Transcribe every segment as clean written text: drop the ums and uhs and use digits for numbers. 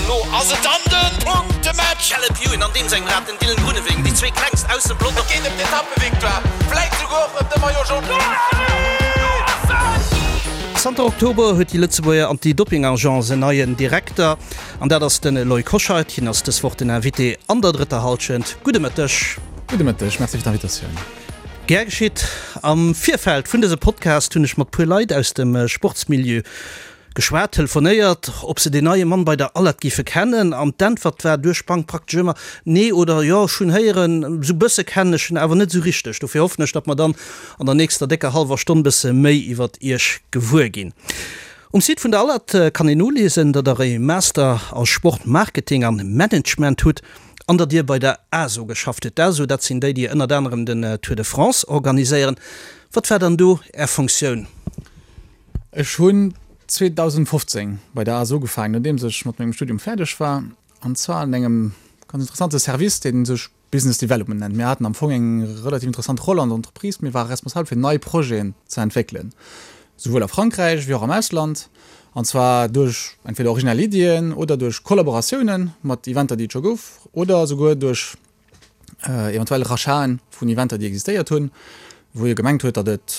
Lo ass et dann de Punktematch! Caleb Ewan an deem sengem Rad, den Dylan Groenewegen, déi zwee klengst aus dem Pelotong. Et geet ëm d'Etappevictoire, vläit souguer och ëm de Maillot Jaune. Zanter Oktober huet déi Lëtzebuerger Anti-Doping-Agence en neien Direkter, an dat ass de Loïc Hoscheit. Hien ass dës Woch den Invité an der drëtter Hallschent. Gudde Mëtteg. Gudde Mëtteg, merci fir d'Invitatioun. Gär geschitt. Am Virfeld vun dësem Podcast hunn ech mat puer Leit aus dem Sportsmilieu Geschwat, telefonéiert, ob se deen neie Mann bei der Alert géife kennen, an d'Äntwert war duerch d'Bank praktesch ëmmer, Nee oder Jo, ech hunn héieren, esou bësse kennen ech en awer net esou richteg. Dofir hoffen ech, datt mer dann an der nächster décker hallwer Stonn bësse méi iwwert Iech gewuer ginn. Um Site vun der Alert kann een noliesen, datt Der e Master a Sport Marketing an Management hutt an datt Dir bei der ASO geschafft hutt. D'ASO, dat sinn déi, déi ënnert anerem den Tour de France organiséieren. Wat war dann do Är Funktioun? Ech hunn 2015 bei der ASO ugefaangen, nodeems ech mat mengem Studium fäerdeg war, an zwar an engem ganz interessante Service, dee sech Business Development nennt. Mir haten am Fong eng relativ interessant Roll an der Entreprise, mir ware responsabel fir nei Projeten ze entwéckelen, souwuel a Frankräich wéi och am Ausland, an zwar duerch entweder originell Iddien oder duerch Kollaboratiounen mat Eventer, déi et scho gouf, oder souguer duerch eventuell Rachaten vun Eventer, déi existéiert hunn, wou ee gemengt huet, datt et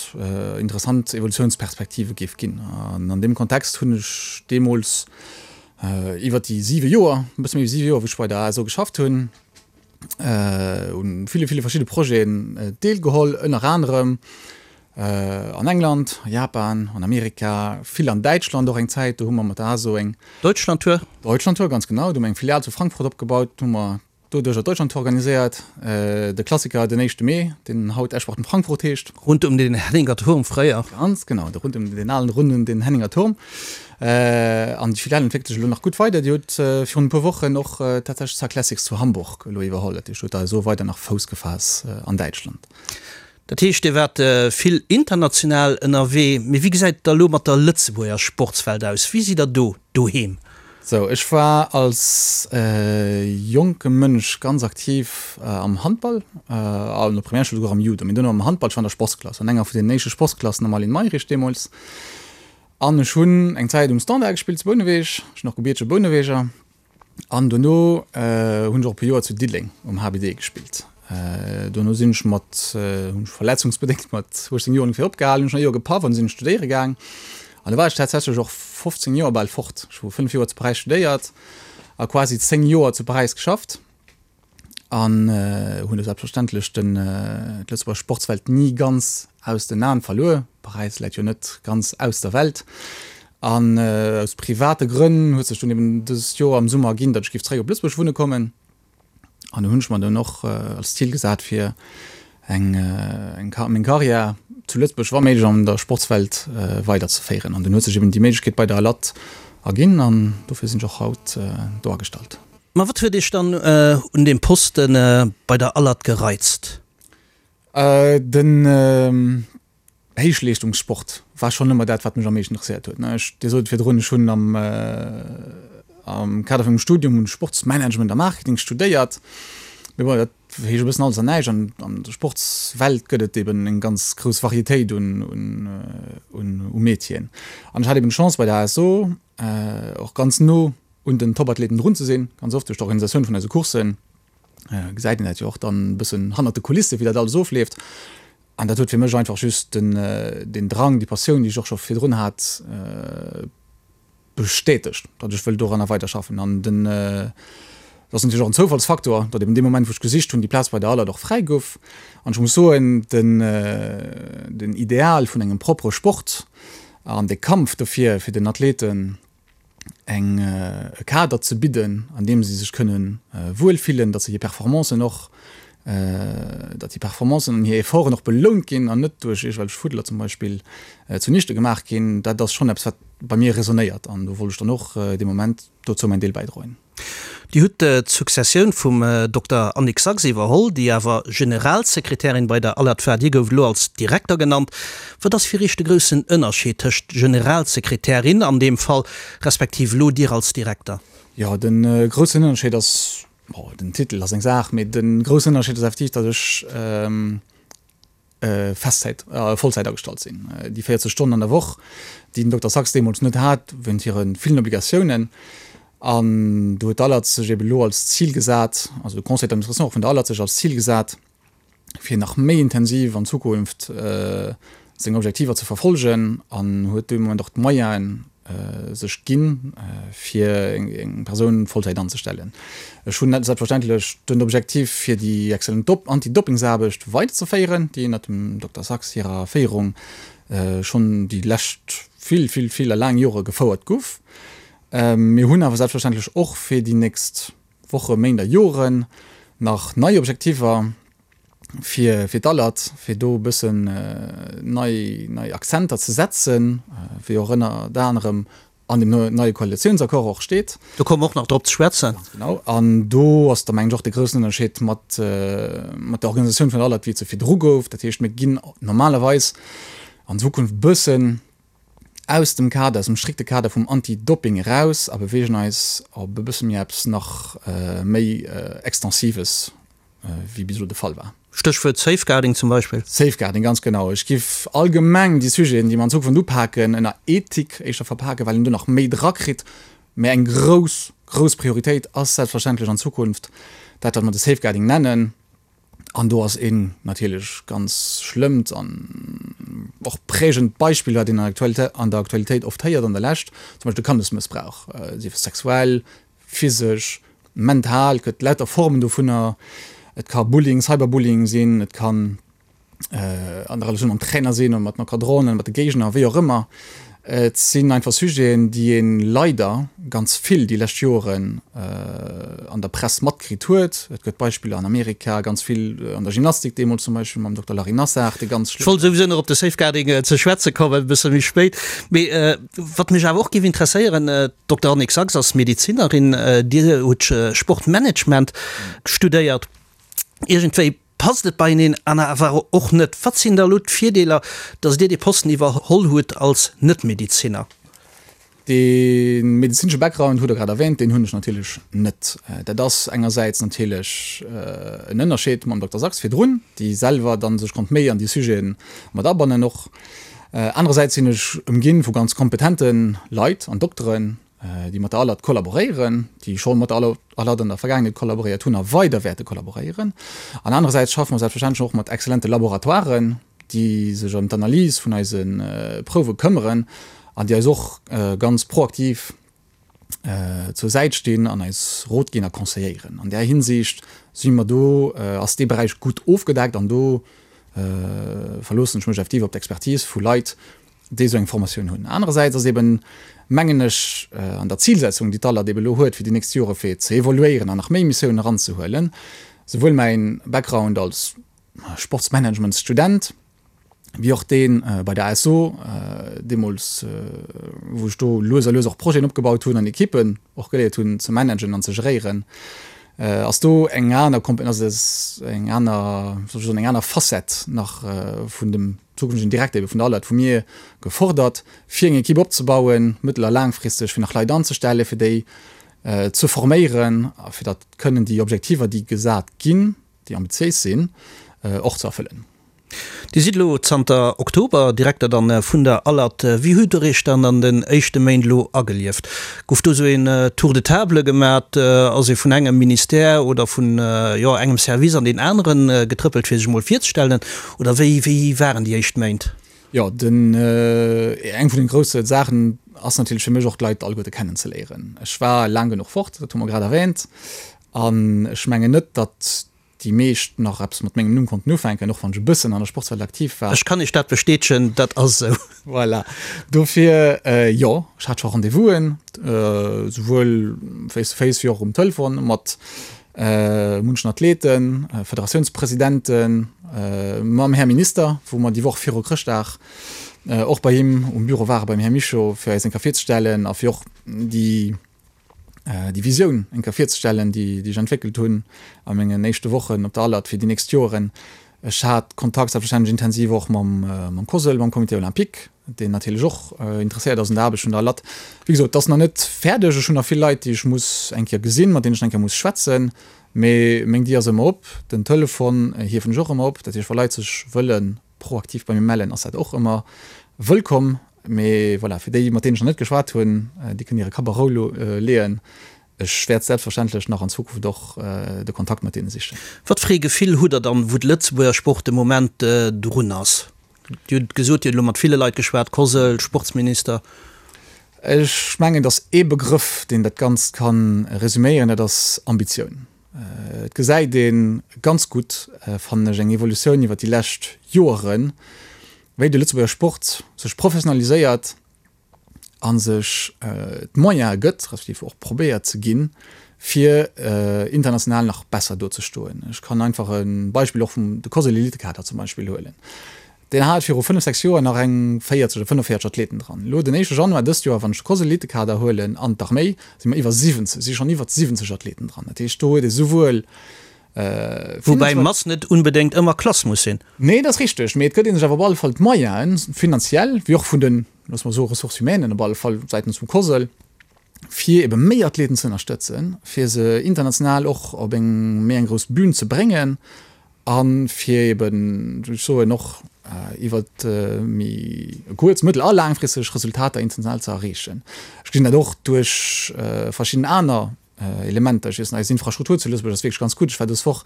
interessant Evolutiounsperspektive géif ginn. An an deem Kontext hunn ech deemools iwwert déi siwe Joer, e bësse méi wéi siwe Joer, wou ech bei der ASO geschafft hunn, u ville, ville verschidde Projeten deelgeholl, ënner anerem an England, a Japan, an Amerika, vill an Däitschland och eng Zäit. Do hu mer mat der ASO eng. Deutschlandtour. Deutschlandtour, ganz genau. Do hu mer eng Filial zu Frankfurt opgebaut, do hu mer Doduerch Deutschlandtour organiséiert, de Klassiker den éischte Mee, deen haut Eschbach Frankfurt heescht. Rund um den Henninger Turm fréier. Ganz genau, de rund um den alen rund um den Henninger Turm. An déi Filial entwéckelt sech elo nach gutt weider. Déi huet virun e puer Wochen och tatsächlech d'Cyclassics zu Hamburg elo iwwerholl. Dat heescht, huet da esou weider nach Fouss gefaass an Däitschland. Dat heescht, Dir waart vill international ënnerwee. Mee wéi gesäit et da elo mat der Lëtzebuerger Sportswelt aus? Wéi sidd Der do doheem? Sou, ech war als jonke Mënsch ganz aktiv am Handball, an der Primärschoul souguer am Judo, mee duerno am Handball. Ech war an der Sportsklass, an enger vun den éischte Sportsklassen am Aline Mayrisch deemools. An ech hunn eng Zäit um Standard gespillt zu Bouneweg. Ech sinn och gebiertege Bouneweger. An dono hunn ech och e puer Joer zu Diddeleng um HBD gespillt. Dono sinn ech mat, hunn ech verletzungsbedéngt mat 18 Joer ongeféier opgehalen, hunn ech nach e Joer gepaff an sinn studéiere gaang. An do war ech tatsächlech och 15 Joer bal fort. Ech hu 5 Joer zu Paräis studéiert a quasi 10 Joer zu Paräis geschafft. An hunn do selbstverständlech den d'Lëtzebuerger Sportswelt ni ganz aus den Aen verluer. Paräis läit jo net ganz aus der Welt. An aus private Grënn huet sech dunn eben dëst Joer am Summer erginn, datt ech géif zeréck op Lëtzebuerg wunne kommen. An do hunn ech mer dunn och als Zil gesat fir eng eng meng Karriär zu Lëtzebuerg wa méiglech an der Sportswelt weider ze féieren. An dunn huet sech eben déi Méiglechkeet bei der ALAT erginn an dofir sinn ech och haut do agestallt. Ma wat huet Iech dann un deem Poste bei der ALAT gereizt? Den Héichleeschtungssport war schonn ëmmer dat, wat mech am meeschten interesséiert huet. Ech, Dir sot et virdrun, ech hunn am am Kader vun mengem Studium hunn ech Sportsmanagement a Marketing studéiert. Mee bon, dat heescht e bëssen alles an näischt. An an der Sportswelt gëtt et eben eng ganz grouss Varietéit un un un u Métieren. An ech hat eben d'Chance bei der ASO och ganz no un den Topathleten drun ze sinn, ganz oft duerch d'Organisatioun vun eise Courssen gesäit een dat jo och dann e bëssen hannert de Kulisse wéi dat alles ofleeft. An dat huet fir mech einfach just den den Drang, déi Passioun, déi ech och scho virdrun hat, bestätegt, datt ech wëll doranner weiderschaffen. An den, dat ass natierlech och en Zoufallsfaktor, datt eben dee Moment wou ech gesicht hunn, déi Plaz bei der Alert och fräi gouf. An ech muss soen, den den Ideal vun engem proppere Sport an de Kampf dofir, fir den Athleten eng e Kader ze bidden, an deem se sech kënne wuel fillen, datt se hir Performancen och, datt hir Performancen an hir Efforten och belount ginn an net duerch iergendwelch Fuddler zum Beispill zunichte gemaach ginn, dat ass schonn eppes, wat bei mir resonéiert an do wollt ech dann och dee Moment dozou mäin Deel bäidroen. Dir hutt d'Successioun vum Dokter Annick Sax iwwerholl, déi awer Generalsekretärin bei der ALAT war. Dir gouft elo als Direkter genannt. Wat ass fir Iech de groussen Ënnerscheed tëscht Generalsekretärin an deem Fall, respektiv elo Dir als Direkter? Jo, de groussen Ënnerscheed ass, bon, den Titel ass eng Saach, mee de groussen Ënnerscheed ass effektiv, datt ech Festzäit, Vollzäit agestallt sinn. Déi 40 Stonnen an der Woch, déi den Dokter Sax deemools net hat, wéint hire villen Obligatiounen. An do huet d'ALAT sech eben elo als Zil gesat, also de Conseil d'administration och vun der ALAT sech als Zil gesat, fir nach méi intensiv an Zukunft seng Objektiver ze verfolgen an huet dee Moment och d'Moyenen sech ginn, fir eng Persoun Vollzäit anzestellen. Ech hunn selbstverständlech den Objektiv, fir déi exzellent Anti-Dopingsaarbecht weiderzeféieren, déi ënnert dem Dokter Sax hirer Féierung schonn déi lescht vill, vill, vill a laang Jore gefouert guff. Mir hunn awer selbstverständlech och fir déi nächst Woche, Méint a Joren nach nei Objektiver fir fir d'Alert, fir do e bëssen nei nei Akzenter ze setzen, wéi och ënnert anerem an dem neie Koalitiounsaccord och steet. Do komme mer och nach drop ze schwätzen. Ganz genau. An do ass da mengen ech och de groussen Ënnerscheed mat mat der Organisatioun vun der Alert, wéi et se virdru gouf. Dat heescht, mir ginn normalerweis an Zukunft e bëssen aus dem Kader, aus dem strikte Kader vum Anti-Doping eraus a beweegen eis op e bësse méi eppes nach méi Extensives, wéi bis elo de Fall war. Stéchwuert Safeguarding zum Beispill. Safeguarding, ganz genau. Ech géif allgemeng déi Sujeten, déi mer an Zukunft upaken, ënner Ethik éischter verpaken, well een do nach méi drakritt. Mä eng grouss, grouss Prioritéit ass selbstverständlech an Zukunft dat, wat mer de Safeguarding nennen. An do ass een natierlech ganz schlëmmt an och prägend Beispill, wat een an der Aktualitéit oft héiert an der Lescht, zum Beispill de Kandesmëssbrauch, sief et sexuell, physesch, mental, et gëtt lauter Formen dovunner. Et ka Bullying, Cyberbullying sinn, et kann an der Relatioun mam Trainer sinn oder mat den Encadranten, mat de Géigner, wéi och ëmmer. Et sinn einfach Sujeten, déi ee leider ganz vill déi lescht Joren an der Press matkritt huet. Et gëtt Beispiller an Amerika, ganz vill an der Gymnastik deemools zum Beispill mam Dokter Larry Nassar, dee ganz Ech wollt souwisou nach op de Safeguarding ze schwätze kommen, e bësse méi spéit. Mee wat mech awer och géif interesséieren, d'Dokter Annick Sax ass Medezinerin, Dir hutt Sportmanagement studéiert. Iergendwéi Passt et beieneen an awer och net? Wat sinn da elo d'Virdeeler, datt Dir dee Posten iwwerholl hutt als Net-Medezinner? Dee medezinesche Background hutt Der grad erwähnt, deen hunn ech natierlech net. Dat ass engersäits natierlech en Ënnerscheed mam Dokter Sax virdrun, déi selwer dann sech konnt méi an déi Sujete mat abannen och. Anerersäits sinn ech ëmginn vu ganz kompetente Leit an Dokteren, déi mat der ALAT kollaboréieren, déi scho mat der ALAT an der Vergaangenheet kollaboréiert hunn a weider wäerte kollaboréieren. An anerersäits schaffe mer selbstverständlech och mat exzellente Laboratoiren, déi sech ëm d'Analys vun eise Prouwe këmmeren an déi eis och ganz proaktiv zur Säit stinn an eis Rot ginn a conseilléieren. An där Hinsicht si mer do, ass dee Beräich gutt ofgedeckt an do verloossen ech mech effektiv op d'Expertise vu Leit, déi esou eng Formatioun hunn. Anerersäits ass eben, mengen ech, an der Zilsetzung, déi d'ALAT eben elo huet fir déi nächst Jore fir ze evoluéieren an nach méi Missiounen eranzehuelen, souwuel mäin Background als Sportsmanagementsstudent wéi och dee bei der ASO deemools, wou ech do lues a lues och Projeten opgebaut hunn an Ekippen och geléiert hunn ze managen an ze geréieren, ass do eng aner, ass eng aner, soll ech soen, eng aner Facette nach vun dem zukünftegen Direkter ebe vun der ALAT vu mir gefordert, fir eng Ekipp opzebauen, mëttel a laangfristeg, fir nach Leit anzestellen, fir déi ze forméieren a fir datt kënnen déi Objektiver, déi gesat ginn, déi ambitiéis sinn, och ze erfëllen. Dir sidd elo zanter Oktober Direkter dann vun der ALAT. Wéi hutt Der Iech dann an den éischte Méint elo agelieft? Gouf do esou een Tour de table gemat? Ass ee vun engem Ministère oder vun, jo, engem Service an deen aneren getrëppelt, fir sech emol virzestellen? Oder wéi, wéi waren déi éischt Méint? Jo, den, eng vun den grousse Saachen ass natierlech fir mech och d'Leit alleguerte kennenzeléieren. Ech war laang genuch fort, dat hu mer grad erwähnt, an ech mengen net, datt déi meescht nach eppes mat mengem Numm konnten ufänken, och wann ech e bëssen an der Sportswelt aktiv war. Ech kann Iech dat bestätegen, dat ass esou. Voilà, dofir, jo, ech hat scho Rendez-vousen, souwuel face to face wéi och um Telefon mat munchen Athleten, Federatiounspresidenten, mam Här Minister, wou mer déi Woch viru Chrëschtdag och bei him um Büro waren, beim Här Mischo, fir eis eng Kéier virzestellen a fir och déi déi Visioun eng Kéier virzestellen, déi ech entwéckelt hunn a mengen éischte Wochen op der ALAT fir déi nächst Joren. Ech hat Kontakt selbstverständlech intensiv och mam COSL, mam Comité olympique, deen natierlech och interesséiert ass un der Aarbecht vun der ALAT. Wéi gesot, et ass nach net fäerdeg. Ech hunn nach vill Leit, déi ech muss eng Kéier gesinn, mat deenen ech nach eng Kéier muss schwätzen. Mee meng Dier ass ëmmer op, den Telefon hiewen ech och ëmmer op. Dat heescht, wa Leit sech wëlle proaktiv bei mir mellen, ass dat och ëmmer wëllkomm. Mee voilà, fir déi, mat deenen ech nach net geschwat hunn, déi kënnen hire Kapp a Rou leeën. Ech wäert selbstverständlech nach an Zukunft och de Kontakt mat deene sichen. Wat fir ee Gefill hutt Der dann, wou de Lëtzebuerger Sport de Moment drun ass? Dir hutt gesot, Dir hutt elo mat ville Leit geschwat, Cosl, Sportsminister. Ech mengen, et ass ee Begrëff, deen dat Ganzt ka resuméieren, dat ass Ambitioun. Et gesäit ee ganz gutt, fannen ech, eng Evolutioun iwwer déi lescht Joeren, wéi de Lëtzebuerger Sport sech professionaliséiert a sech d'Moyene gëtt, respektiv och probéiert ze ginn, fir international nach besser dozestoen. Ech kann einfach e Beispill och vum de COSL Elitekader zum Beispill huelen. Deen hat viru 5, 6 Joer nach eng 40 oder 45 Athleten dran. Elo den éischte Januar dëst Joer, wann ech de COSL Elitekader huelen an d'Arméi, si mer iwwer 70, si schonn iwwer 70 Athleten dran. Dat heescht, do huet ee souwuel Woubäi Mass net unbedéngt ëmmer Klass muss sinn. Nee, dat ass richteg, mee et gëtt ee sech awer op alle Fall d'Moyenen, finanziell wéi och vun den, loosse mer soen, Ressources humaines op alle Fall säitens vum COSL, fir ebe méi Athleten ze ënnerstëtzen, fir se international och op eng méi eng grouss Bühn ze bréngen a fir eben, wéi ech soen, och iwwer méi kuerz-, mëttel a laangfristeg Resultater international ze erreechen. Ech gesinn dat och duerch verschidden aner Elementer. Ech weess, eis Infrastruktur zu Lëtzebuerg ass wierklech ganz gutt. Ech war dës Woch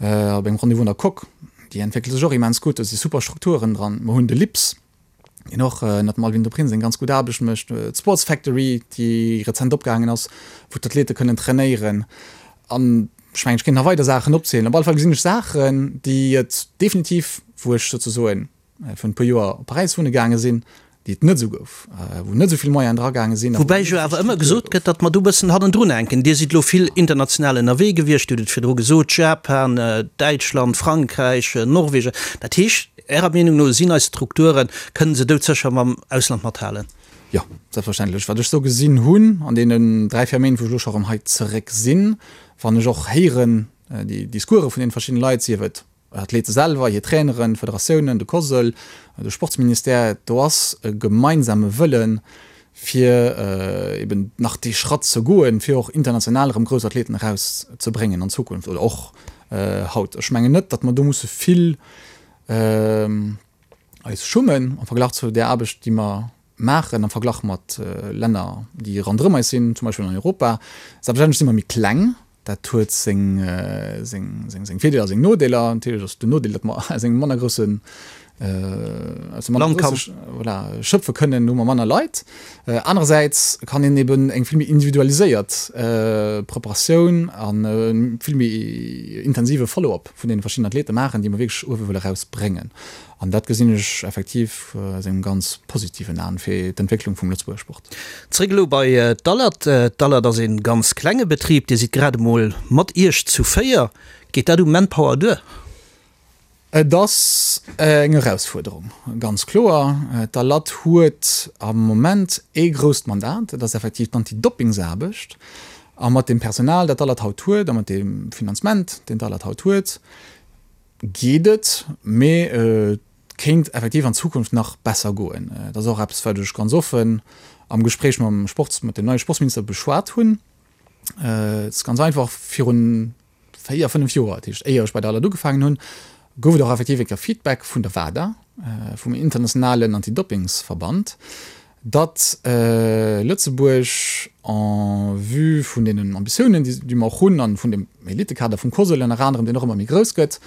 op engem Rendez-vous an der Coque. Déi entwéckelt sech och immens gutt. Do si super Strukturen dran. Mer hunn de LIPS, deen och ënnert dem Alwin de Prins eng ganz gutt Aarbecht mécht. D'Sports Factory, déi rezent opgaangen ass, wou d'Athlete kënnen trainéieren. An ech mengen, ech kéint nach weider Saachen opzielen. Op alle Fall gesinn ech Saachen, déi et definitiv, wou ech souzesoen virun e puer Joer op Paräis wunne gaange sinn, déi et net esou gouf, wou net esou vill Moyenen dragaange sinn. Woubäi jo awer ëmmer gesot gëtt, datt mer do e bëssen hannendrun hänken. Dir sidd elo vill international ënnerwee gewiescht, Dir hutt et virdru gesot, Japan, Däitschland, Frankräich, Norwegen. Dat heescht, Ärer Meenung no sinn eis Strukturen, kënnen se doudsécher mam Ausland mathalen? Jo, selbstverständlech. Wat ech sou gesinn hunn an deenen 3, 4 Méint, wou ech elo scho erëm hei zeréck sinn, wann ech och héieren déi Discourse vun deene verschiddene Leit, sief et Athlete selwer, hir Traineren, d'Federatiounen, de COSL, de Sportsministère, do ass e gemeinsame Wëllen, fir eben nach dee Schratt ze goen, fir och international erëm grouss Athleten erauszebréngen an Zukunft oder och haut. Ech mengen net, datt mer do musse vill eis schummen am Verglach zu där Aarbecht, déi mer maachen am Verglach mat Länner, déi ronderëm eis sinn, zum Beispill an Europa. Selbstverständlech si mer méi kleng, dat huet seng, seng, seng, seng Virdeeler a seng Nodeeler. Natierlech ass den Nodeel, datt mer aus engem manner groussen, aus engem manner grousse, voilà, schöpfe kënnen, hu mer manner Leit. Anerersäits kann een eben eng vill méi individualiséiert Preparatioun an e vill méi intensive Follow-up vun deene verschiddenen Athlete maachen, déi mer wierklech uewe wëlle erausbréngen. An dat gesinn ech effektiv aus engem ganz positiven Aen fir d'Entwécklung vum Lëtzebuerger Sport. Zréck elo bei d'Alert. D'Alert ass ee ganz klenge Betrib. Dir sidd grad emol mat Iech zu 4. Geet dat u Manpower duer? Et ass eng Erausfuerderung, ganz kloer. D'Alert huet am Moment ee grousst Mandat, dat ass effektiv d'Antidoppingsaarbecht. A mat deem Personal, dat d'Alert haut huet, a mat deem Finanzement, deen d'Alert haut huet, geet et, mee et kéint effektiv an Zukunft nach besser goen. Et ass och eppes, wat ech ganz offen am Gespréich mam Sports, mat dem neie Sportsminister beschwat hunn. Et ass ganz einfach, virun 4, 5 Joer, dat heescht éier ech bei der ALAD ugefaangen hunn, gouf et och effektiv eng Kéier Feedback vun der WADA, vum internationalen Antidoppingsverband, datt Lëtzebuerg en vue vun deenen Ambitiounen, déi mer och hunn, an vun dem Elitekader vum COSL ënner anerem, deen och ëmmer méi grouss gëtt,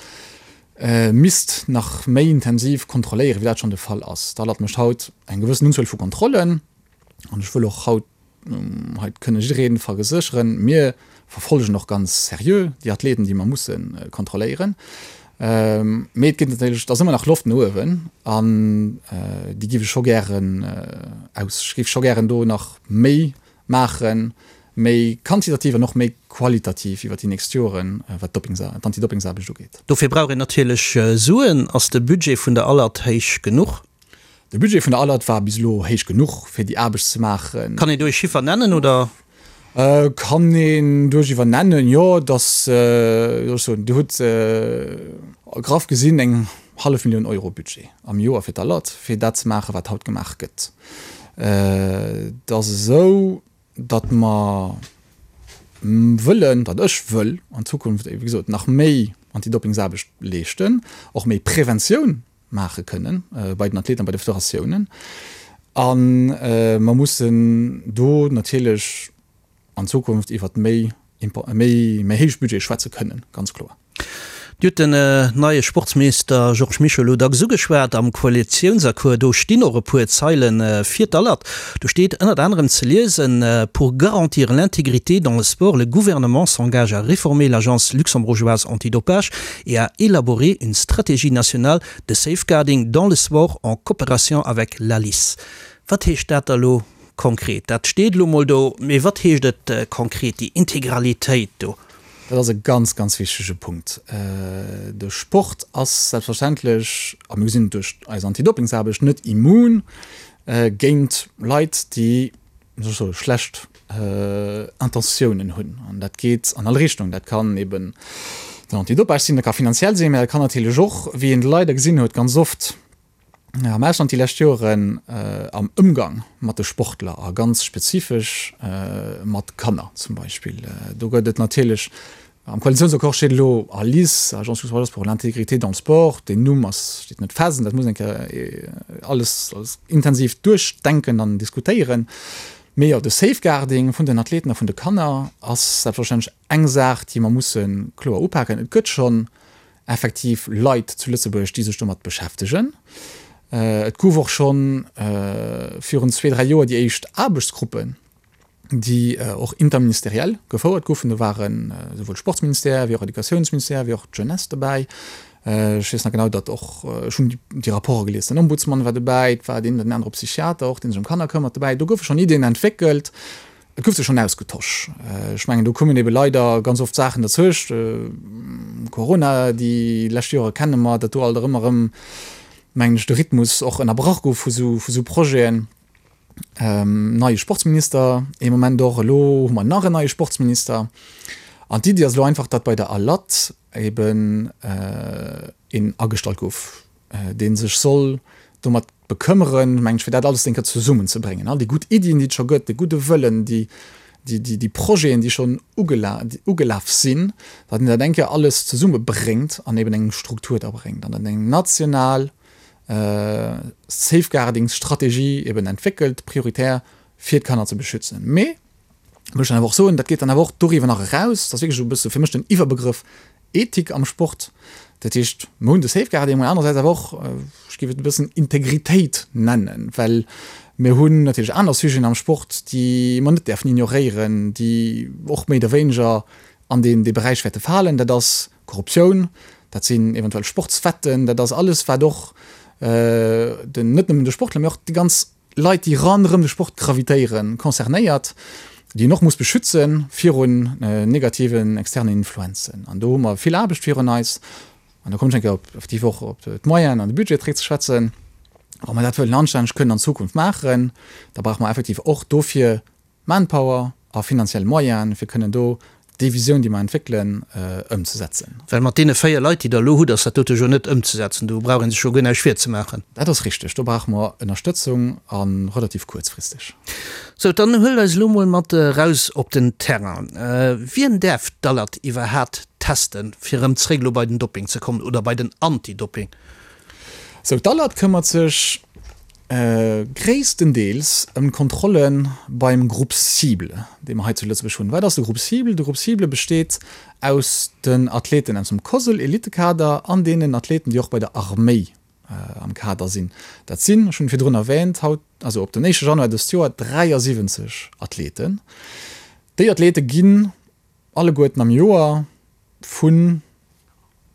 misst nach méi intensiv kontrolléieren, wéi dat schonn de Fall ass. D'ALAT mécht haut eng gewëssen Unzuel vu Kontrollen, an ech wëll och haut Hei kënne jidderee versécheren, mir verfollegen och ganz seriö déi Athleten, déi mer musse kontrolléieren. Mee et gëtt natierlech, et ass ëmmer nach Loft no uewen an déi géif ech scho gären aus, ech géif scho gären do nach méi maachen, méi quantitativ an och méi qualitativ iwwer déi nächst Joren, wat d'Antidopingsaarbecht ugeet. Dofir brauch een natierlech Suen. Ass de Budget vun der Alert héich genuch? De Budget vun der Alert war bis elo héich genuch, fir déi Aarbecht ze maachen. Kann een do ee Chiffer nennen, oder? Kann een duerchiwwer nennen, jo. Et ass, wéi soll ech soen, Dir hutt graff gesinn eng hallef Millioun Euro Budget am Joer fir d'Alert, fir dat ze maachen, wat haut gemaach gëtt. Et ass esou, datt mer wëllen, datt ech wëll an Zukunft, wéi gesot, nach méi Antidopingsaarbecht leeschten, och méi Preventioun maache kënnen bei den Athleten a bei de Federatiounen. A mer mussen do natierlech an Zukunft iwwert méi, méi, méi héich Budgete schwätze kënnen, ganz kloer. Dir hutt den neie Sportsminister Georges Mischo elo dacks ugeschwat. Am Koalitiounsaccord, do stinn och e puer Zeile fir d'Alert. Do steet ënnert anerem ze liesen, Pour garantir l'intégrité dans le sport, le gouvernement s'engage à réformer l'Agence luxembourgeoise antidopage et à élaborer une stratégie nationale de safeguarding dans le sport en coopération avec l'ALIS. Wat heescht dat da elo konkret? Dat steet elo mol do, mee wat heescht et konkret, déi Integralitéit do? Dat ass e ganz, ganz wichtege Punkt. De Sport ass selbstverständlech, a mir gesinn et duerch eis Antidoppingsaarbecht, net immun géint Leit, déi, wéi soll ech soen, schlecht Intentiounen hunn. An dat geet an all Richtung. Dat kann eben den Antidopage sinn, dat ka finanziell sinn, mä dat kann natierlech och, wéi een leider gesinn huet ganz oft, am Ausland déi lescht Joren am Ëmgang mat de Sportler a ganz spezifesch mat Kanner zum Beispill. Do gëtt et natierlech, am Koalitiounsaccord steet elo ALIS, Agence luxembourgeoise pour l'intégrité dans le sport, deen Numm ass, steet net fest an dat muss een eng Kéier alles intensiv duerchdenken an diskutéieren. Mee jo, de Safeguarding vun den Athleten a vun de Kanner ass selbstverständlech eng Saach, déi mer musse kloer upaken. Et gëtt schonn effektiv Leit zu Lëtzebuerg, déi sech domat beschäftegen. Et gouf och scho virun zwee, dräi Joer déi éischt Aarbechtsgruppen, déi och interministeriell gefouert goufen. Do ware souwuel Sportsministère wéi och Educatiounsministère wéi och d'Jeunesse dobäi. Ech weess nach genau, datt och, ech hunn déi Rapporte gelies, den Ombudsmann war dobäi, et war deen oder den anere Psychiater och, dee sech ëm Kanner këmmert, dobäi. Do goufe schonn Iddien entwéckelt. Et gouf sech schonn ausgetosch. Ech mengen, do kommen ebe leider ganz oft Saachen derzwëscht. Corona, déi lescht Jore kenne mer, datt do alt erëm erëm, mengen ech, de Rhythmus och ënnerbrach gouf vu sou, vu sou Projeten. Neie Sportsminister ee Moment och. Elo hu mer nach en neie Sportsminister. An d'Iddi ass elo einfach, datt bei der ALAT eben een agestallt gouf, dee sech soll domat bekëmmeren, mengen ech, fir dat alles eng Kéier zesummenzebréngen, all déi gutt Iddien, déi et scho gëtt, de gudde Wëllen, déi, déi, déi, déi Projeten, déi schonn ugela, ugelaf sinn, datt een dat eng Kéier alles zesummebréngt an eben eng Struktur da bréngt an dann eng national Safeguardingsstrategie eben entwéckelt, prioritär fir d'Kanner ze beschützen. Mee, muss ech dann awer och soen, dat geet dann awer och doriwwer nach eraus, dat ass wierklech esou e bësse fir mech den Iwwerbegrëff Ethik am Sport, dat heescht, mer hunn de Safeguarding, mä anerersäits awer och, ech géif et e bëssen Integritéit nennen, well mir hunn natierlech aner Sujeten am Sport, déi mer net däerfen ignoréieren, déi och méi oder wéineger an deen dee Beräich wäerte falen. Dat ass Korruptioun, dat sinn eventuell Sportswetten, dat ass alles, wat och den, net nëmmen de Sportler, mä och déi ganz Leit, déi ronderëm de Sport gravitéieren, concernéiert, déi een och muss beschütze virun negativen externen Influenzen. An do hu mer vill Aarbecht virun eis. An do kommen ech eng Kéier op effektiv och op d'Moyenen an de Budget zréckzeschwätzen. Wa mer dat wëllen anstänneg kënnen an Zukunft maachen, da brauche mer effektiv och dofir Manpower a finanziell Moyenen, fir kënnen do déi Visioun, déi mer entwéckelen, ëmzesetzen. Well mat deene 4 Leit, déi Der elo hutt, ass dat dote jo net ëmzesetzen. Do brauch ee sech jo guer näischt virzemaachen. Dat ass richteg. Do brauche mer Ënnerstëtzung a relativ kuerzfristeg. Sou, dann huelt eis elo mol mat eraus op den Terrain. Wien däerf d'Alert iwwerhaat testen, fir erëm zréck elo bei den Dopping ze kommen oder bei den Anti-Dopping? Sou, d'Alert këmmert sech Gréisstendeels ëm d'Kontrolle beim Groupe cible, dee mer hei zu Lëtzebuerg hunn. Wat ass de Groupe cible? De Groupe cible besteet aus den Athleten aus dem COSL-Elitekader an deenen Athleten, déi och bei der Arméi am Kader sinn. Dat sinn, ech hunn et virdrun erwähnt, haut, also op den éischte Januar dëst Joer, 73 Athleten. Déi Athlete ginn alleguerten am Joer vun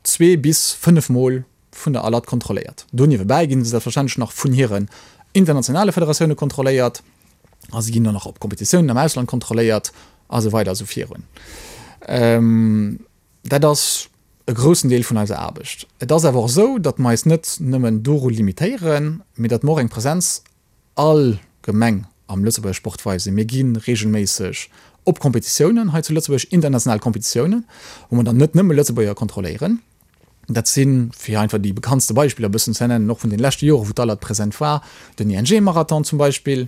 zwee bis 5 Mol vun der ALAT kontrolléiert. Do niewebäi ginn se selbstverständlech nach vun hiren internationale Federatioune kontrolléiert a se ginn och nach op Kompetitiounen am Ausland kontrolléiert a sou weider a sou virun. Dat ass e groussen Deel vun eiser Aarbecht. Et ass awer och esou, datt mer eis net nëmmen doru limitéieren, mee datt mer och eng Presenz allgemeng am Lëtzebuerger Sport weisen. Mir gi reegelméisseg op Kompetitiounen hei zu Lëtzebuerg, international Kompetitiounen, wou mer dann net nëmme Lëtzebuerger kontrolléieren. Dat sinn, fir einfach déi bekanntste Beispiller e bëssen ze nennen, och vun den leschte Joren, wou d'Alert present war, den ING-Marathon zum Beispill,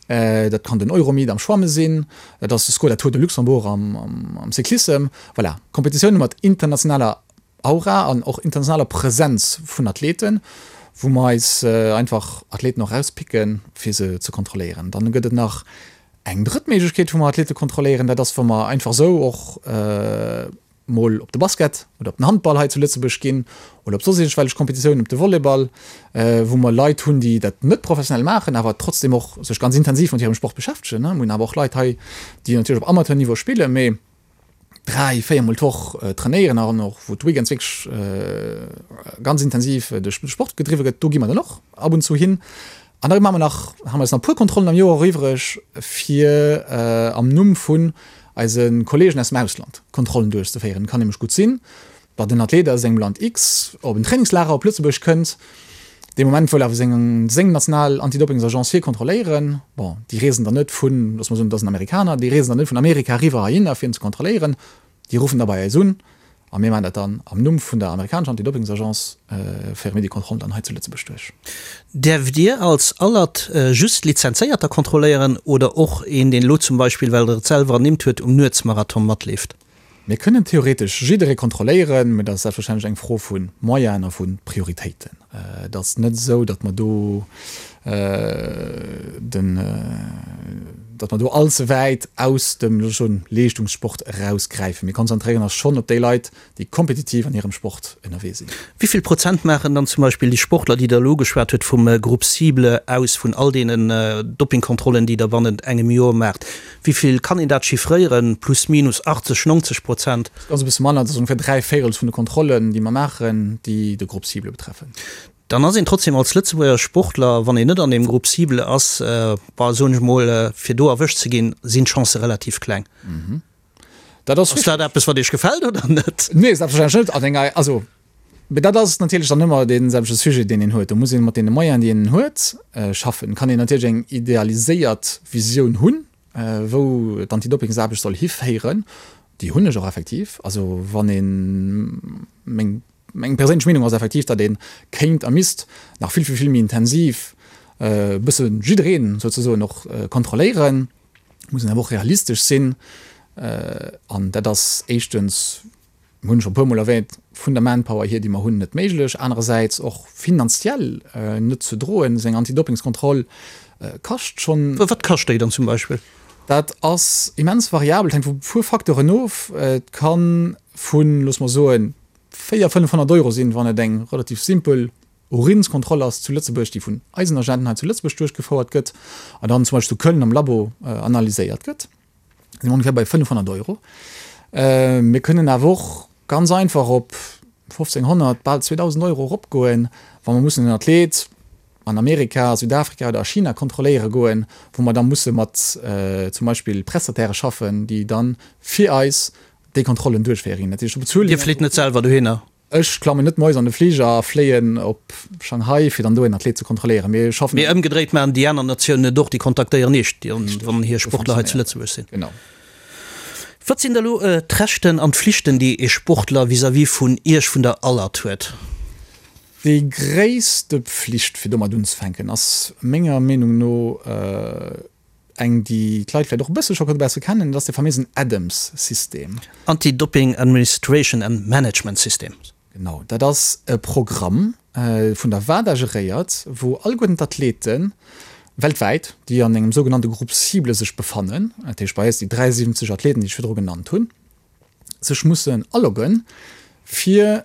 dat kann den Euromeet am Schwamme sinn, dat ass de Skoda Tour de Luxembourg am Cyclissem. Voilà, Kompetitioune mat internationaler Aura an och internationaler Presenz vun Athleten. wou mer eis einfach Athleten och erauspicken, fir se ze kontrolléieren. Dann gëtt et nach eng drëtt Méiglechkeet, wou mer Athlete kontrolléieren, dat ass, wa mer einfach esou och mol op de Basket oder op den Handball hei zu Lëtzebuerg ginn oder op soss iergendwellech Kompetitiounen, op de Volleyball, wou mer Leit hunn, déi dat net professionell maachen, awer trotzdem och sech ganz intensiv mat hirem Sport beschäftegen. Mir hunn awer och Leit hei, déi natierlech op Amateurniveau spillen, mee 3, 4 mol d'Woch trainéieren an och wou d'Weekends wierklech ganz intensiv de Sport gedriwwe gëtt. Do gi mer dann och ab und zu hin. An da maache mer nach, hu mer eis nach e puer Kontrollen am Joer och iwwreg, fir am Numm vun eise Kolleegen aus dem Ausland Kontrollen duerchzeféieren. Et kann nämlech gutt sinn, datt en Athlet aus engem Land X op en Trainingslager op Lëtzebuerg kënnt, dee Moment wëll awer seng seng national Antidoppingsagence hie kontrolléieren. Bon, déi reesen dann net vun, loosse mer soen, et ass en Amerikaner, déi reesen dann net vun Amerika eriwwer heihinner fir en ze kontrolléieren, déi ruffen da bei eis un a mir maachen dat dann am Numm vun der amerikanescher Antidoppingsagence, féiere mir déi Kontrollen dann hei zu Lëtzebuerg duerch. Däerft Dir als Alert just Lizenzéierter kontrolléieren oder och een, deen elo zum Beispill, well Der et selwer ernimmt huet, um Nuetsmarathon matleeft? Mir kënnen theoretesch jidderee kontrolléieren, mä dat ass selbstverständlech eng Fro vu Moyenen a vu Prioritéiten. Et ass net esou, datt mer do den, datt mer do allze wäit aus dem, looss ech soen, Leeschtungssport erausgräifen. Mir konzentréieren eis schonn op déi Leit, déi kompetitiv an hirem Sport ënnerwee sinn. Wéi vill Prozent maachen dann zum Beispill déi Sportler, déi Der elo ugeschwat hutt, vum Groupe cible aus, vun all deenen Doppingkontrollen, déi Der bannent engem Joer maacht? Wéi vill kann een dat chiffréieren, plus minus 80, 90 Prozent? Dat ass e bësse manner, dat ass ongeféier 3 Véirels vun de Kontrollen, déi mer maachen, déi de Groupe cible betreffen. Dann ass een trotzdem als Lëtzebuerger Sportler, wann een net an deem Groupe cible ass, bah, soen ech mol, fir do erwëscht ze ginn, sinn d'Chancë relativ kleng. Dat ass Ass dat eppes, wat Iech gefält oder net? Nee, selbstverständlech net. An enger, also, mee dat ass natierlech dann ëmmer dee selwechte Sujet, deen een huet. Do muss ee mat deene Moyenen, déi een huet, schaffen. Kann een natierlech eng idealiséiert Visioun hunn, wou d'Antidoppingsaarbecht soll hiféieren. Déi hunn ech och effektiv. Also wann ee meng, meng perséinlech Meenung ass effektiv, datt ee kéint a misst nach vill, vill, vill méi intensiv e bësse jiddereen souzesoen och kontrolléieren. Muss een awer och realistesch sinn. An dat ass éischtens, hunn ech scho e puermol erwähnt, vun der Manpower hier, déi mer hunn, net méiglech. Anerersäits och finanziell net ze droen. Esou eng Antidoppingskontroll kascht schonn. Wat kascht déi dann zum Beispill? Dat ass immens variabel, et hänkt vu puer Facteuren of. Et ka vu, loosse mer soen, 400, 500 Euro sinn, wann et eng relativ simpel Urinskontroll ass zu Lëtzebuerg, déi vun eisen Agenten hei zu Lëtzebuerg duerchgefouert gëtt an dann zum Beispill zu Köln am Labo analyséiert gëtt, si mer ongeféier bei 500 Euro. Mir kënnen awer och ganz einfach op 1.500, bal 2.000 Euro eropgoen, wa mer mussen en Athlet an Amerika, Südafrika oder a China kontrolléiere goen, wou mer da musse mat zum Beispill Prestatairë schaffen, déi dann fir eis déi Kontrollen duerchféieren. Dat heescht, do bezuele mir. Dir flitt net selwer dohinner? Ech klammen net moies an de Fliger a fléien op Shanghai, fir dann do een Athlet ze kontrolléieren. Mir schaffen. Mee ëmgedréit maachen déi aner Natiounen et och, déi kontaktéieren Iech, wann hir Sportler hei zu Lëtzebuerg sinn. Genau. Wat sinn da lo d'Rechten an d'Flichten, déi ee Sportler vis-à-vis vun Iech, vun der Alert huet? Déi gréisste Pflicht, fir domat unzefänken, ass menger Meenung no, Eng, déi d'Leit vläicht och e bësse scho besse kennen, dat ass de faméisen ADAMS-System. Anti-Doping Administration and Management System. Genau, dat ass e Programm, vun der WADA geréiert, wou alleguerten d'Athlete weltwäit, déi an engem sougenannte Groupe cible sech befannen, dat heescht bei eis déi 73 Athleten, déi ech virdru genannt hunn, sech mussen aloggen, fir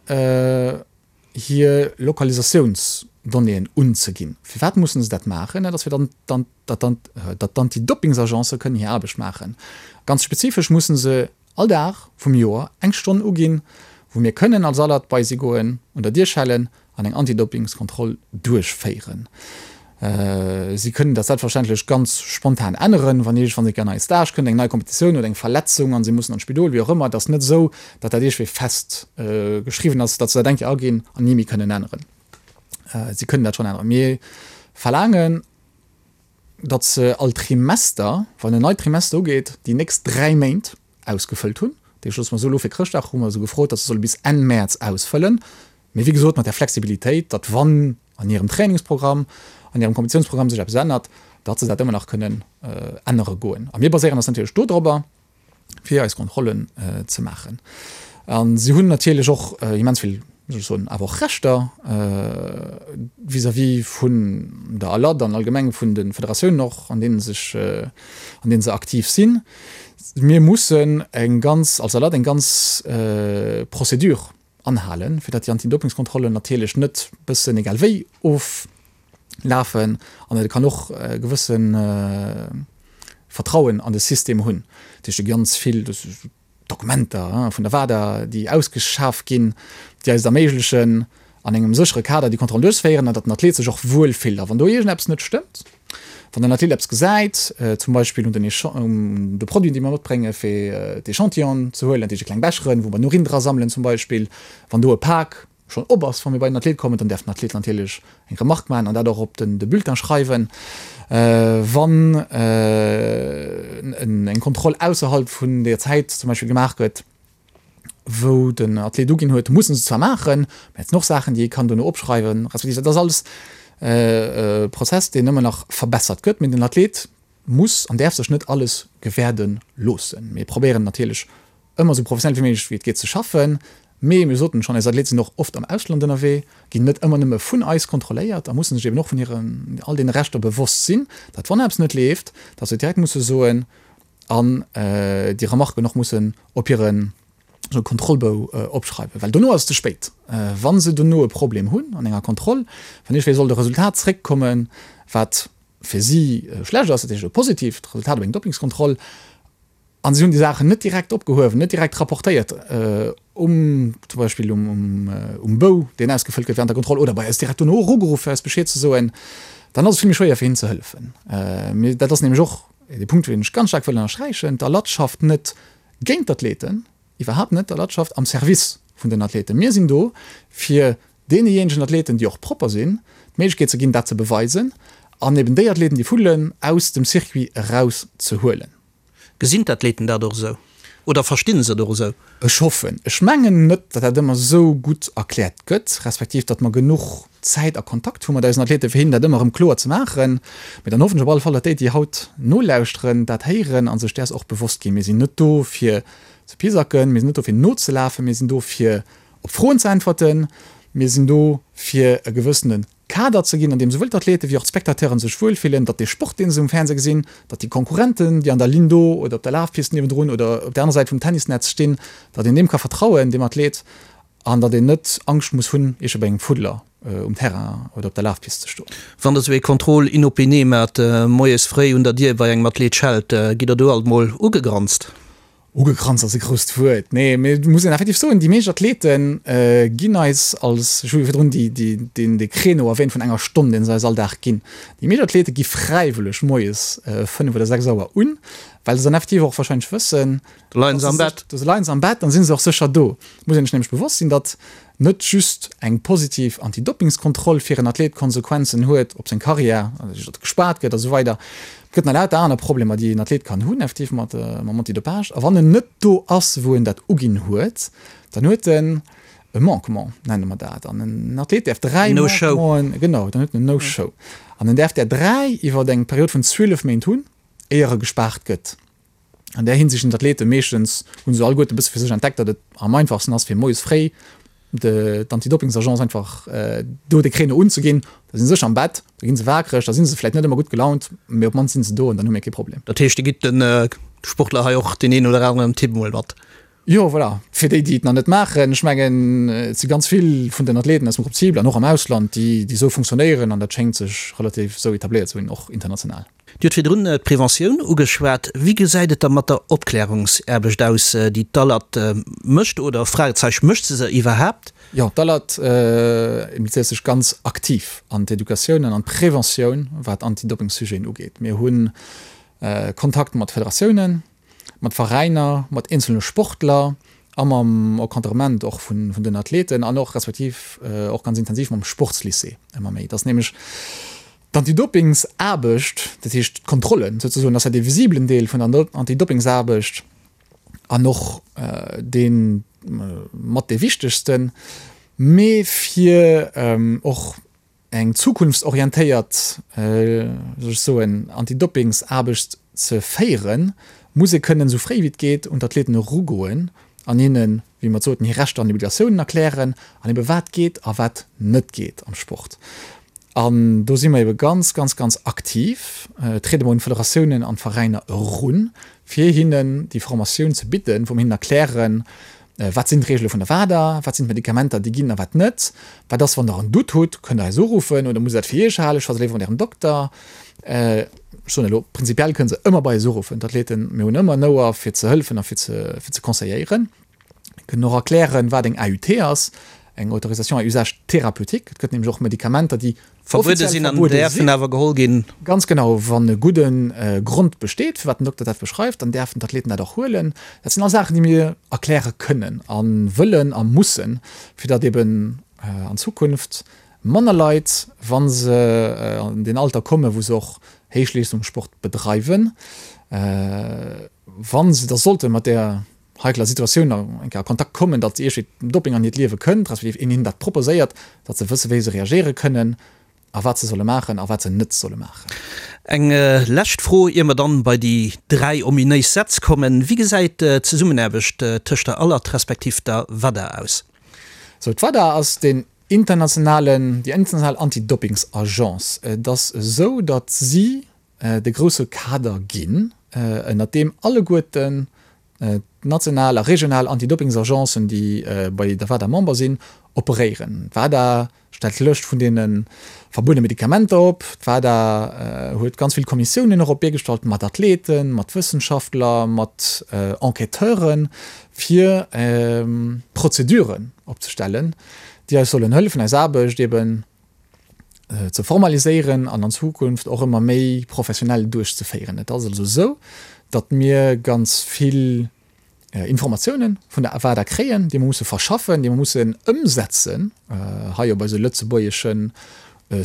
hir Lokalisatiounsdonnéeën unzeginn. Firwat mussen se dat maachen? Dat ass fir datt d'Anti-Doppingsagence kënnen hir Aarbecht maachen. Ganz spezifesch mussen se all Dag vum Joer eng Stonn uginn, wou mir kënnen als Alert bei si goen, un der Dier schellen an eng Antidoppingskontroll duerchféieren. Si kënnen dat selbstverständlech ganz spontan änneren, wann iergendwann eng nei Stage kënnt, eng nei Kompetitioun oder eng Verletzung an si mussen an d'Spidol, wéi och ëmmer. Et ass net esou, datt dat iergendwéi fest geschriwwen ass, datt se dat eng Kéier aginn an ni méi kënnen änneren. Si kënnen dat schonn änneren. Mir verlaangen, datt se all Trimester, wann en neit Trimester ugeet, déi nächst 3 Méint ausgefëllt hunn. Dat heescht, loosse mer soen, elo fir Chrëschtdag hu mer se gefrot, datt se solle bis Enn Mäerz ausfëllen. Mee wéi gesot, mat där Flexibilitéit, datt wann an hirem Trainingsprogramm, an hirem Kompetitiounsprogramm sech eppes ännert, datt se dat ëmmer nach kënnen ännere goen. A mir baséieren eis natierlech dodrobber, fir eis Kontrollen ze maachen. A si hunn natierlech och immens vill. wéi soll ech soen, awer och Rechter vis-à-vis vun der ALAD an allgemeng vun de Federatiounen och, an deene sech, an deene se aktiv sinn. Mir mussen eng ganz, als ALAD eng ganz Procédure anhalen, fir datt déi Antidopingskontrollen natierlech net bëssen egal wéi oflafen an et kann och e gewësse Vertrauen an de System hunn. Dat heescht, ganz vill Dokumenter vun der WADA, déi ausgeschaf ginn, déi eis et erméiglechen, an engem séchere Kader déi Kontrollen duerchzeféieren an datt den Athlet sech och wuel fillt. A wann do iergendeppes net stëmmt, wann den Athlet eppes gesäit, zum Beispill un den un de Produiten, déi mer matbréngen, fir d'Echantillonen ze huelen, dat heescht déi kleng Becheren, wou mer den Urin dra sammelen zum Beispill, wann do e Pak schonn op ass, wa mir bei den Athlet kommen, dann däerf den Athlet natierlech eng Remarque maachen an dat och op de Bulletin schreiwen. Wann eng Kontroll ausserhalb vun der Zäit zum Beispill gemaach gëtt, wou den Athlet uginn huet, mussen se zwar maachen, mä et sinn och Saachen, déi ee kann dono opschreiwen, respektiv dat ass alles e Prozess, deen ëmmer nach verbessert gëtt, mä den Athlet muss an däerf sech net alles gewäerde loossen. Mir probéieren natierlech ëmmer esou professionell wéi méiglech wéi et geet ze schaffen, mee mir soten schonn, eis Athlete sinn och oft am Ausland ënnerwee, ginn net ëmmer nëmme vun eis kontrolléiert a mussen sech eben och vun hiren all deene Rechter bewosst sinn, datt wann eppes net leeft, datt se direkt musse soen an déi Remarken och mussen op hire Kontrollbou opschreiwen, well dono ass et ze spéit. Wa se dono e Problem hunn an enger Kontroll, wann iergendwéi sollt e Resultat zréckkommen, wat fir si schlecht ass, dat heescht e positiivt Resultat op eng Doppingskontroll, a si hunn déi Saachen net direkt opgehuewen, net direkt rapportéiert um zum Beispill um Bou, deen ausgefëllt gëtt während der Kontroll, oder bei eis direkt dono erugeruff fir eis Bescheed ze soen, dann ass et vill méi schwéier fir hinnen ze hëllefen. Mee dat ass nämlech och dee Punkt, deen ech ganz staark wëll ënnersträichen, D'ALAT schafft net géint d'Athleten, iwwerhaapt net, d'ALAT schafft am Service vun den Athleten. Mir sinn do fir deenejéinegen Athleten, déi och propper sinn, d'Méiglechkeet ze ginn, dat ze beweisen an eben déi Athleten, déi fuddelen, aus dem Circuit eraus ze huelen. Gesinn d'Athleten dat och esou oder verstinn se et och esou? Ech hoffen. Ech mengen net, datt dat ëmmer esou gutt erkläert gëtt, respektiv datt mer genuch Zäit a Kontakt hu mat eisen Athleten, fir hinnen dat ëmmer erëm kloer ze maachen. Mee dann hoffen ech op alle Fall, datt déi, déi haut nolauschteren, dat héieren a sech däers och bewosst ginn. Mir sinn net do, fir ze pisacken, mir sinn net do, fir nozelafen, mir sinn do, fir op Froen ze äntwerten, mir sinn do, fir e gewëssene Kader ze ginn, an deem souwuel d'Athlete wéi och d'Spectateuren sech wuelfillen, datt dee Sport, dee se um Fernseh gesinn, datt déi Konkurrenten, déi an der Linn do oder op der Lafpist niewendrun oder op der anerer Säit vum Tennisnetz stinn, datt een deem ka vertrauen, deem Athlet, an datt een net Angscht muss hunn, iergendwéi bei engem Fuddler um Terrain oder op der Lafpist ze stoen. Wann Der esou ee Contrôle inopiné maacht, moies fréi un der Dier bei engem Athlet schellt, gitt Der do alt mol ugegranzt? Ugekranzt ass e grousst Wuert, nee, mee et muss een effektiv soen, déi meescht Athlete ginn eis als, ech hu jo virdrun déi, déi, deen, dee Créneau erwähnt vun enger Stonn, deen se eis all Dag ginn. Déi meescht Athlete gi fräiwëlleg moies 5 oder 6 Auer un, well se dann effektiv och wahrscheinlech wëssen, Do leien se am Bett. Do leien se am Bett, dann si se och sécher do. Et muss een sech nämlech bewosst sinn, datt net just eng positiv Antidoppingskontroll fir en Athlet Konsequenzen huet op seng Karriär, also datt gespaart gëtt a sou weider. Et gëtt nach lauter aner Problemer, déi en Athlet kann hunn effektiv mat mam Antidopage. A wann en net do ass, wou en dat uginn huet, dann huet en e Manquement, nenne mer dat. An en Athlet däerf 3 Manquementen, genau, dann huet en en No-Show. An en däerf där 3 iwwer eng Period vun 12 Méint hunn, éier e gespaart gëtt. An där Hinsicht sinn d'Athlete meeschtens, hu se alleguerte e bësse fir sech entdeckt, datt et am einfachsten ass, fir moies fréi d'Antidoppingsagence einfach do de Créneau unzeginn. Da si se sécher am Bett, da gi se waakreg, da si se vläicht net ëmmer gutt gelaunt, mee op d'mannst si se do an dann hu mir kee Problem. Dat heescht, Dir gitt de Sportler hei och deen een oder aneren Tipp emol mat? Jo, voilà. Fir déi, déi et nach net maachen, ech mengen, et si ganz vill vun den Athleten aus dem Groupe cible an och am Ausland, déi esou funktionéieren an dat schéngt sech relativ esou etabléiert ze hunn, och international. Dir hutt virdrun d'Preventioun ugeschwat. Wéi gesäit et da mat der Opklärungsaarbecht aus, déi d'ALAT mécht? Oder, Fragezeich, mécht se se iwwerhaapt? Jo, d'ALAT implizéiert sech ganz aktiv an d'Educatioun an an d'Preventioun, wat Anti-Doping-Sujeten ugeet. Mir hu Kontakt mat Federatiounen, mat Veräiner, mat eenzelne Sportler a mam Encadrement och vun den Athleten an och respektiv och ganz intensiv mam Sportslycée ëmmer méi. Et ass nämlech D'Antidopingsaarbecht, dat heescht d'Kontrollen souzesoen, ass ja dee visibelen Deel vun der Antidopingsaarbecht an och dee mat dee wichtegsten, mee fir och eng zukunftsorientéiert, wéi soll ech soen, Antidopingsaarbecht ze féieren, muss ee kënnen esou fréi wéi et geet un d'Athleten erugoen. an hinnen, wéi mer et soten, hir Rechter an Obligatiounen erklären an ebe wat geet a wat net geet am Sport. An do si mer ebe ganz, ganz, ganz aktiv, triede mer un d'Federatiounen an d'Veräiner erun, fir hinnen déi Formatioun ze bidden, wou mer hinnen erklären, Wat sinn d'Reegele vun der WADA, wat sinn d'Medikamenter, déi ginn a wat net, wat ass, wann Der en Doute hutt, kënnt Der eis uruffen oder musst Der dat fir Iech halen, schwätzt léiwer mat Ärem Dokter. Ech soen elo, prinzipiell kënne se ëmmer bei eis uruffen, d'Athleten, mir hunn ëmmer en Ouer fir ze hëllefen a fir ze conseilléieren. Mir kënnen och erklären, wat eng AUT ass, eng Autorisation à usage thérapeutique. Et gëtt nämlech och Medikamenter, déi Verbuede sinn an däerfen awer geholl ginn. Ganz genau, wann e gudde Grond besteet, firwat den Dokter dat beschreift, dann däerfen d'Athleten dat och huelen. Dat sinn all Saachen, déi mir erkläre kënnen a wëllen a mussen, fir datt eben an Zukunft manner Leit, wa se an deen Alter kommen, wou se och Héichleeschtungssport bedreiwen, wa se da sollte mat där heikler Situatioun eng Kéier a Kontakt kommen, datt iergendwéi Doping an hiert Liewe kënnt, respektiv een hinnen dat proposéiert, datt se wësse wéi se reagéiere kënnen a wat se solle maachen a wat se net solle maachen. Eng lescht Fro, ier mer dann bei déi 3 ominéis Sätz kommen, Wéi gesäit d'Zesummenaarbecht tëscht der ALAT respektiv der WADA aus? Sou, d'WADA ass deen internationalen, déi international Anti-Dopings-Agence. Et ass esou, datt si de grousse Kader ginn, ënnert deem alleguerten d'national a regional Antidoppingsagencen, déi bei der WADA Member sinn, operéieren. D'WADA stellt d'Lëscht vun deene verbuede Medikamenter op. D'WADA huet ganz vill Kommissiounen och op d'Bee gestallt mat Athleten, mat Wëssenschaftler, mat Enquêteuren, fir Prozeduren opzestellen, déi eis sollen hëllefen, eis Aarbecht eben ze formaliséieren an an Zukunft och ëmmer méi professionell duerchzeféieren. Et ass also esou, datt mir ganz vill Informatiounen vun der WADA kréien, déi mer musse verschaffen, déi mer mussen ëmsetzen hei op eise lëtzebuergesche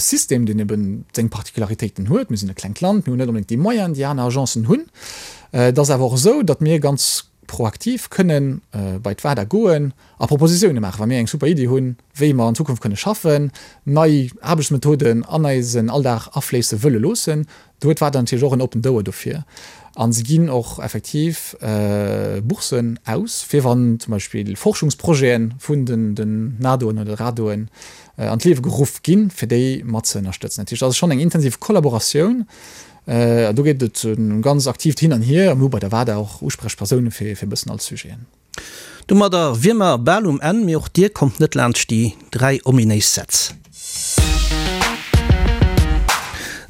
System, deen eben seng Particularitéiten huet. Mir sinn e klengt Land, mir hunn net onbedéngt déi Moyenen, déi aner Agencen hunn. Et ass awer och esou, datt mir ganz proaktiv kënnen bei d'WADA goen a Propositioune maachen, wa mir eng super Iddi hunn, wéi mer an Zukunft kënne schaffen, nei Aarbechtsmethoden an eisen Alldag afléisse wëlle loossen. Do huet d'WADA natierlech och en oppent Ouer dofir a se ginn och effektiv Boursen aus, fir wann zum Beispill Forschungsprojete vun den NADOen oder RADOen an d'Liewe geruff ginn, fir déi mat ze ënnerstëtzen. Dat heescht, dat ass schonn eng intensiv Kollaboratioun. An do geet et e ganz aktiivt Hin an Hier. A mir hu bei der WADA och Usprechpersoune fir e bëssen all Sujeten. Domadder wier mer bal um Enn, mee och dir kommt net laanscht déi 3 ominéis Sätz.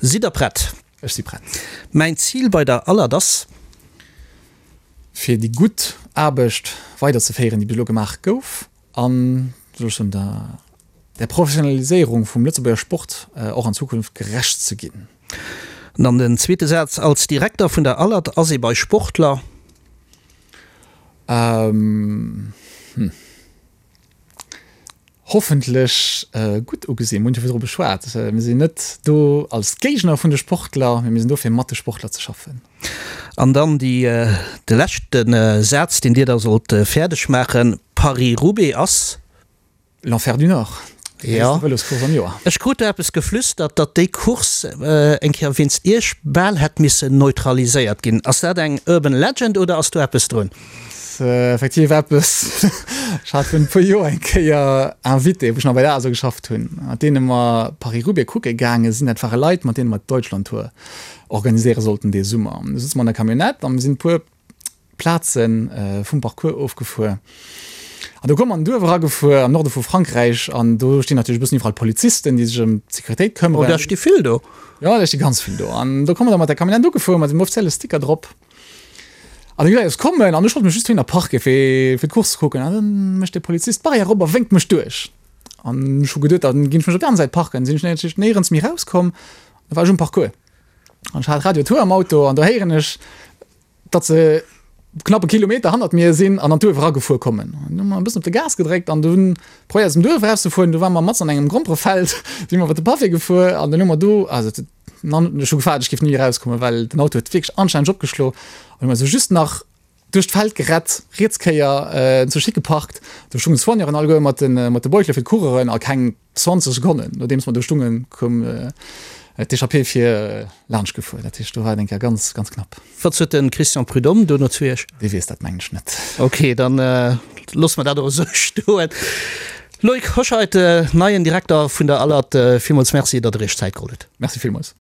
Sidd der prett? Ech si prett. Mäin Zil bei der Alert ass. Fir déi gutt Aarbecht weiderzeféieren, déi bis elo gemaach gouf an, soll ech soen, der der Professionaliséierung vum Lëtzebuerger Sport och an Zukunft gerecht ze ginn. An dann den zweete Saz, Als Direkter vun der Alert ass ee bei Sportler. Hm. Hoffentlech gutt ugesinn. Mir hunn jo virdru beschwat, mir sinn net do als Géigner vun de Sportler, mee mir sinn do fir mat de Sportler ze schaffen. An dann déi, de leschte Saz, deen Dir da sollt fäerdeg maachen, Paris-Roubaix ass. L'Enfer du Nord, déi gréisste Vëloscourse am Joer. Ech krut do eppes geflüstert, datt déi Course eng Kéier wéinst Iech bal hätt missen neutraliséiert ginn. Ass dat eng Urban Legend oder ass do eppes drun? Ass effektiv eppes. Ech hat virun e puer Joer eng Kéier Invité, wou ech nach bei der ASO geschafft hunn, mat deene mer Paris-Roubaix kucke gaange sinn. Dat ware Leit, mat deene mer d'Deutschlandtour organiséiere sollten dee Summer. Du sëtze mer an der Camionnette a mir sinn e puer Plaze vum Parcours ofgefuer. An do koum mer an en Duerf eragefuer am Norde vu Frankräich an do stinn natierlech e bëssen iwwerall Polizisten, déi sech ëm d'Sécuritéit këmmeren. Oh, der sti vill do. Jo, der sti ganz vill do. An do komme mer da mat der Camionnette ugefuer mat dem offizielle Sticker drop. An déi Leit kommen an ech wollt mech just dohinner parke fir fir d'Course ze kucken. An dann mécht de Polizist d'Barrière op a wénkt mech duerch. An ech hu geduet, dann ginn ech mech op déi aner Säit parken. Sinn ech natierlech néierens méi rauskomm. Da war ech um Parcours. An ech hat Radio Tour am Auto an do héieren ech, datt se knapp e Kilometer hannert mir sinn an an d'Duerf eragefuer kommen. An hu mer e bëssen op de Gas gedréckt an dunn probéiert aus dem Duerf erauszefueren. Du ware mer matzen an engem Gromperefeld, si mer iwwer de Pavé gefuer an dann hu mer do, also ech hu gefaart, ech géif ni erauskommen, well den Auto huet wierklech anstänneg opgeschlo. An hu mer esou just nach. Duerch d'Feld gerett, riets Kéier zu Schick geparkt. Do stungen d'Soigneuren alleguer mat de mat de Beutele fir d'Coureuren a keng 20 Sekonnen nodeems mer do stungen, koum d'Echappée vir laanscht gefuer. Dat heescht, do war et eng Kéier ganz, ganz knapp. Wat sot de Christian Prudhomme dono zu Iech? Dee weess dat mengen ech net. Ok, dann loosse mer dat och esou stoen. Loïc Hoscheit, neien Direkter vun der ALAT, villmools Merci, datt Der Iech Zäit geholl hutt. Merci villmools.